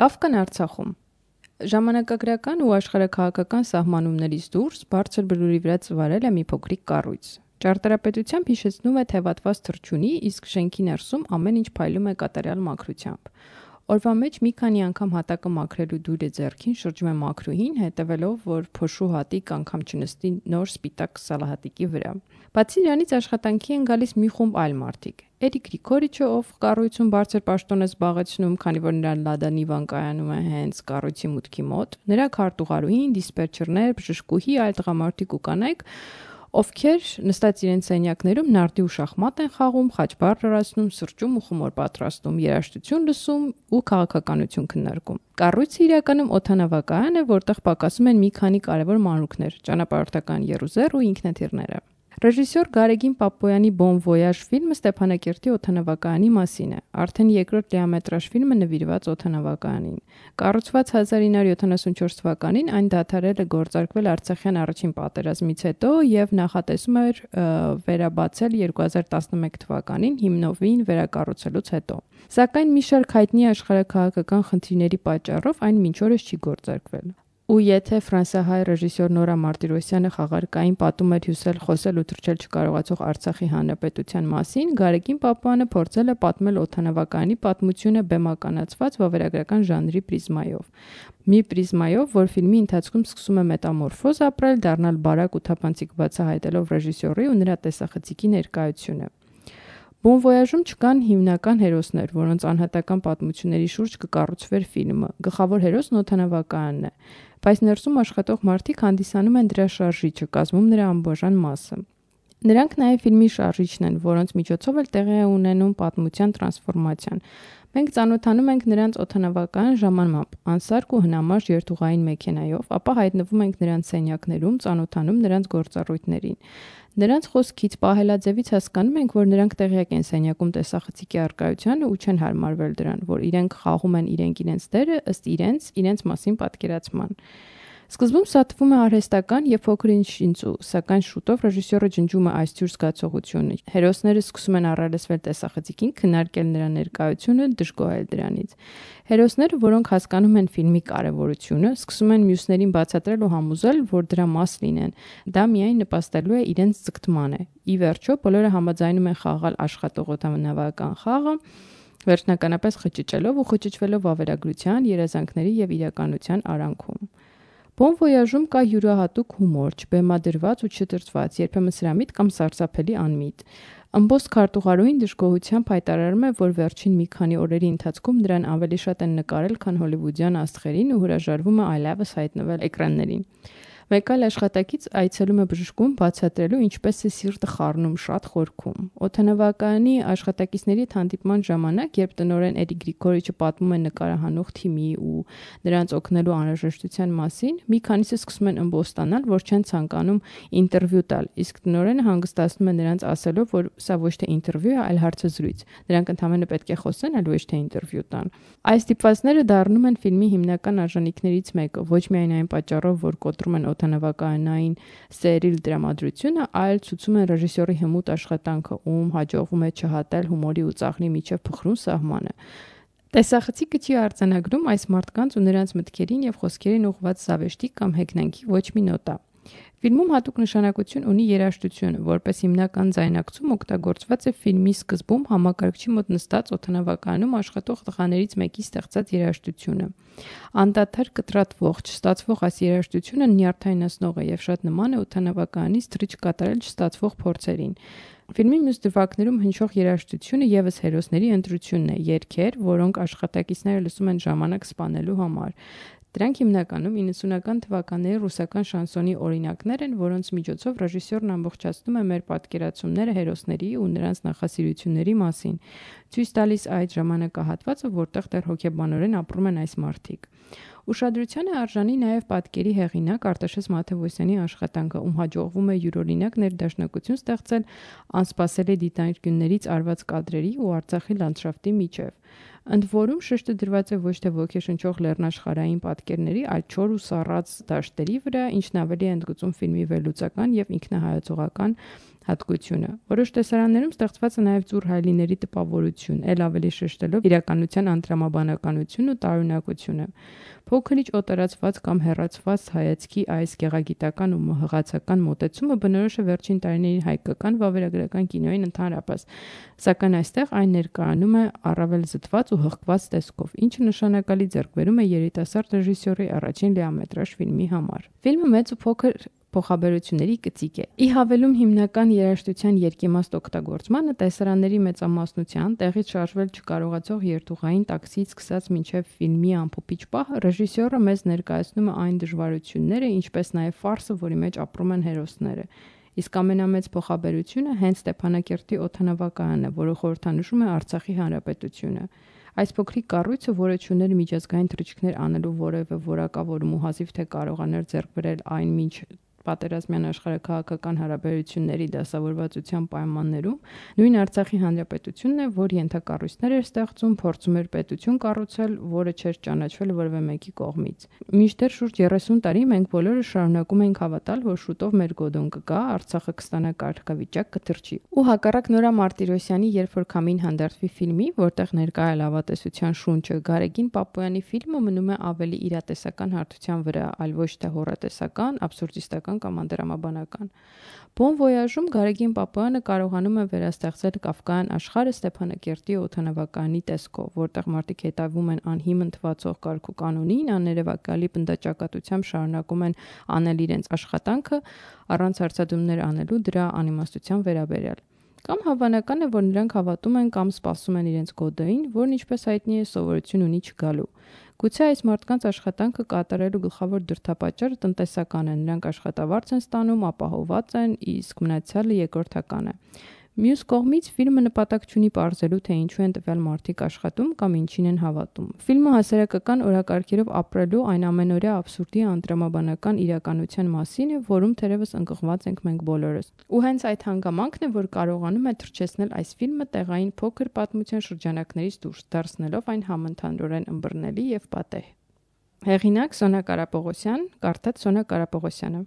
Կավկան Արցախում։ Ժամանակագրական ու աշխարհաքաղաքական սահմանումներից դուրս բարձր բլուրի վրա ծվարել է մի փոքրիկ կառույց։ Ճարտարապետությամբ հիշեցնում է թևատված թռչունի, իսկ շենքի ներսում ամեն ինչ փայլում է կատարյալ մաքրությամբ։ Օրվա մեջ մի քանի անգամ հատակը մաքրելու դույլը ձեռքին շրջում է մաքրուհին, հետևելով, որ փոշու հատիկ անգամ չնստի նոր սպիտակ սալահատիկի վրա։ Բացի դրանից աշխատանքի են գալիս մի խումբ այլ մարդիկ։ Էրիկ Գրիգորիչը, ով կառույցում բարձր պաշտոն է զբաղեցնում, քանի որ նրա լադանիվան կայանում է հենց կառույցի մուտքի մոտ, նրա քարտուղարուհին, դիսպետչերներ, բժշկուհի, այլ տղամարդիկ ու կանայք, ովքեր նստած իրենց սենյակներում նարդի ու շախմատ են խաղում, խաչբար լրացնում, սրճում ու խմոր պատրաստում, երաժշտություն լսում ու քաղաքականություն քննարկում։ Կառույցը իրականում օդանավակայան է, որտեղ պակասում են մի քանի կարևոր մանրուքներ՝ ճանապարհորդական եռուզեռ ու ինքնաթիռները։ Ռեժիսոր Գարեգին Պապոյանի «Bon Voyage» ֆիլմը Ստեփանակերտի օդանավակայանի մասին է։ Արդեն երկրորդ լիամետրաժ ֆիլմը նվիրված օդանավակայանին։ Կառուցված 1974 թվականին, այն դադարել է գործարկվել Արցախյան առաջին պատերազմից հետո եւ նախատեսում էր վերաբացել 2011 թվականին հիմնովին վերակառուցելուց հետո։ Սակայն մի շարք հայտնի աշխարհաքաղաքական խնդիրների պատճառով այն մինչ օրս չի գործարկվել։ Ու եթե ֆրանսիահայ ռեժիսոր Նորա Մարտիրոսյանը խաղարկային պատում էր հյուսել խոսել ու թռչել չկարողացող Արցախի հանրապետության մասին, Գարեգին Պապոյանը փորձել է պատմել օդանավակայանի պատմությունը բեմականացված վավերագրական ժանրի պրիզմայով։ Մի պրիզմայով, որ ֆիլմի ընթացքում սկսում է մետամորֆոզ ապրել, դառնալ բարակ ու թափանցիկ բացահայտելով ռեժիսորի ու նրա տեսախցիկի ներկայությունը։ Bon Voyage-ում չկան հիմնական հերոսներ, որոնց անհատական պատմությունների շուրջ կկառուցվեր ֆիլմը։ Գլխավոր հերոսն օդանավակայանն է, բայց ներսում աշխատող մարդիկ հանդիսանում են դրա շարժիչը, կազմում նրա անբաժան մասը։ Նրանք նաև ֆիլմի շարժիչն են, որոնց միջոցով էլ տեղի է ունենում պատմության տրանսֆորմացիան։ Մենք ծանոթանում ենք նրանց օդանավակայան ժամանմամբ, անսարք ու հնամաշ երթուղային մեքենայով, ապա հայտնվում ենք նրանց սենյակներում, ծանոթանում նրանց գործառույթներին։ Նրանց խոսքից, պահելաձևից հասկանում ենք, որ նրանք տեղյակ են սենյակում տեսախցիկի առկայությանը ու չեն հարմարվել դրան, որ իրենք խաղում են իրենց դերը ըստ իրենց մասին պատկերացման։ Սկզբում սա թվում է արհեստական եւ փոքր ինչ շինծու, սակայն շուտով ռեժիսորը ջնջում է այս թյուր զգացողությունը։ Հերոսները սկսում են առերեսվել տեսախցիկին, քննարկել նրա ներկայությունը, դժգոհել դրանից։ Հերոսները, որոնք հասկանում են ֆիլմի կարևորությունը, սկսում են մյուսներին բացատրել ու համոզել, որ դրա մաս լինեն։ Դա միայն նպաստելու է իրենց ձգտմանը։ Ի վերջո, բոլորը համաձայնում են խաղալ աշխատող օդանավական խաղը, վերջնականապես խճճելով ու խճճվելով վավերագրության, երազանքների եւ իրականության արանքում։ Bon Voyage-ում կա յուրահատուկ հումոր, չբեմադրված ու չտրծված, երբեմն սրամիտ կամ սարսափելի անմիտ։ Ըմբոստ քարտուղարուհին դժգոհությամբ հայտարարում է, որ վերջին մի քանի օրերի ընթացքում նրան ավելի շատ են նկարել, քան հոլիվուդյան աստղերին ու հրաժարվում է այլևս հայտնվել էկրաններին։ Մեկ այլ աշխատակից այցելում է բժշկուն բացատրելու, ինչպես է սիրտը խառնում, շատ խորքում։ Օդանավակայանի աշխատակիցների հանդիպման ժամանակ, երբ տնօրեն Էրիկ Գրիգորիչը պատմում է նկարահանող թիմի ու նրանց օգնելու անհրաժեշտության մասին, մի քանիսը սկսում են ըմբոստանալ, որ չեն ցանկանում ինտերվյու տալ, իսկ տնօրենը հանգստացնում է նրանց ասելով, որ սա ոչ թե ինտերվյու է, այլ հարցազրույց։ Նրանք ընդհանրապես պետք է խոսեն, այլ ոչ թե ինտերվյու տան։ Այս դիպվածները դառնում են ֆիլմի հիմնական արժանինքներից մեկը, ոչ միայն այն պատճառով, որ կոտրում են օդանավակայանային սերիլ դրամատրությունը, այլ ցույցում են ռեժիսորի հմուտ աշխատանքը, ում հաջողվում է չհատել հումորի ու ծաղրի միջև փխրուն սահմանը։ Տեսախցիկը չի արձանագրում այս մարդկանց ու նրանց մտքերին եւ խոսքերին ուղղված զավեշտի կամ հեգնանքի ոչ մի նոտա։ Ֆիլմում հատուկ նշանակություն ունի երաժշտությունը, որպես հիմնական ձայնակցում օգտագործված է ֆիլմի սկզբում համակարգչի մոտ նստած օդանավակայանում աշխատող տղաներից մեկի ստեղծած երաժշտությունը։ Անդադար կտրատվող, չստացվող այս երաժշտությունը նյարդայնացնող է եւ շատ նման է օդանավակայանից թռիչ կատարել չստացվող փորձերին։ Ֆիլմի մյուս դրվագներում հնչող երաժշտությունը եւս հերոսների ընտրությունն է, երգեր, որոնք աշխատակիցները լսում են ժամանակ սպանելու համար։ Դրանք հիմնականում 90-ական թվականների ռուսական շանսոնի օրինակներ են, որոնց միջոցով ռեժիսորն ամբողջացնում է մեր պատկերացումները հերոսների ու նրանց նախասիրությունների մասին, ցույց տալիս այդ ժամանակահատվածը, որտեղ դեռ հոգեբանորեն ապրում են այս մարդիկ։ Ուշադրության է արժանի նաև պատկերի հեղինակ Արտաշես Մաթևոսյանի աշխատանքը, ում հաջողվում է յուրօրինակ ներդաշնակություն ստեղծել անսպասելի դիտարկյուններից արված կադրերի ու Արցախի լանդշաֆտի միջև։ Ընդ որում շեշտը դրված է ոչ թե ոգեշնչող լեռնաշխարհային պատկերների, այլ չոր ու սառած դաշտերի վրա, ինչն ավելի է ընդգծում ֆիլմի վերլուծական եւ ինքնահայացողական հատկությունը։ Որոշ տեսարաններում ստեղծված է նաև ծուռ հայելիների տպավորություն, ել ավելի շեշտելով իրականության անդրամաբանականությունն ու տարօրինակությունը։ Փոքրիչ օտարացված կամ հեռացված հայացքի այս գեղագիտական ու հղացական մոտեցումը բնորոշ է վերջին տարիների հայկական վավերագրական կինոյին ընդհանրապես, սակայն այստեղ այն ներկայանում է առավել զտված ու հղկված տեսքով, ինչը նշանակալի ձեռքբերում է երիտասարդ ռեժիսորի առաջին լիամետրաժ ֆիլմի համար։ Ֆիլմը մեծ ու փոքր փոխաբերությունների կծիկ է։ Ի հավելում հիմնական երաժշտության երկիմաստ օգտագործմանը, տեսարանների մեծամասնության, տեղից շարժվել չկարողացող երթուղային տաքսիից սկսած մինչև ֆիլմի ամփոփիչ պահը, ռեժիսորը մեզ ներկայացնում է այն դժվարությունները, ինչպես նաև ֆարսը, որի մեջ ապրում են հերոսները։ Իսկ ամենամեծ փոխաբերությունը հենց Ստեփանակերտի օդանավակայանն է, որը խորհրդանշում է Արցախի հանրապետությունը։ Այս փոքրիկ կառույցը, որը չուներ միջազգային թռիչքներ անելու որևէ որակավորում ու հազիվ թե կարողաներ ձեռք բերել այն մինչ պատերազմյան աշխարհաքաղաքական հարաբերությունների դասավորվածության պայմաններում, նույն Արցախի հանրապետությունն է, որ ենթակառույցներ էր ստեղծում, փորձում էր պետություն կառուցել, որը չէր ճանաչվել որևէ մեկի կողմից։ Մինչդեռ շուրջ 30 տարի մենք բոլորը շարունակում ենք հավատալ, որ շուտով մեր գոդոն կգա, Արցախը կստանա կարգավիճակ, կթռչի։ Ու հակառակ Նորա Մարտիրոսյանի «Երբ որ քամին հանդարտվի» ֆիլմի, որտեղ ներկա է լավատեսության շունչը, Գարեգին Պապոյանի ֆիլմը մնում է ավելի իրատեսական հարթության վրա, այլ ոչ թե հոռետեսական, աբսուրդիստական կամ անդրամաբանական։ Բոն Վոյաժում Գարեգին Պապոյանը կարողանում է վերաստեղծել Կաֆկայան աշխարհը Ստեփանակերտի օդանավակայանի տեսքով, որտեղ մարդիկ հետևում են անհիմն թվացող կարգ ու կանոնին, աներևակայալի պնդաճակատությամբ շարունակում են անել իրենց աշխատանքը, առանց հարցադրումներ անելու դրա անիմաստության վերաբերյալ։ Կամ հավանական է, որ նրանք հավատում են կամ սպասում են իրենց գոդային, որն ինչպես հայտնի է սովորություն ունի չգալու։ Գուցե այս մարդկանց աշխատանքը կատարելու գլխավոր դրդապատճառը տնտեսական է, նրանք աշխատավարձ են ստանում, ապահովված են, իսկ մնացյալը երկրորդական է։ Մյուս կողմից ֆիլմը նպատակ չունի պարզելու, թե ինչու են տվյալ մարդիկ աշխատում կամ ինչին են հավատում։ Ֆիլմը հասարակական օրակարգերով ապրելու այն ամենօրյա աբսուրդի անդրամաբանական իրականության մասին է, որում թերևս ընկղված ենք մենք բոլորս։ Ու հենց այդ հանգամանքն է, որ կարողանում է թռչեցնել այս ֆիլմը տեղային փոքր պատմության շրջանակներից դուրս, դարձնելով այն համընդհանուրեն ըմբռնելի եւ պատեհ։ Հեղինակ Սոնա Կարապողոսյան, կարդաց Սոնա Կարապողոսյանը։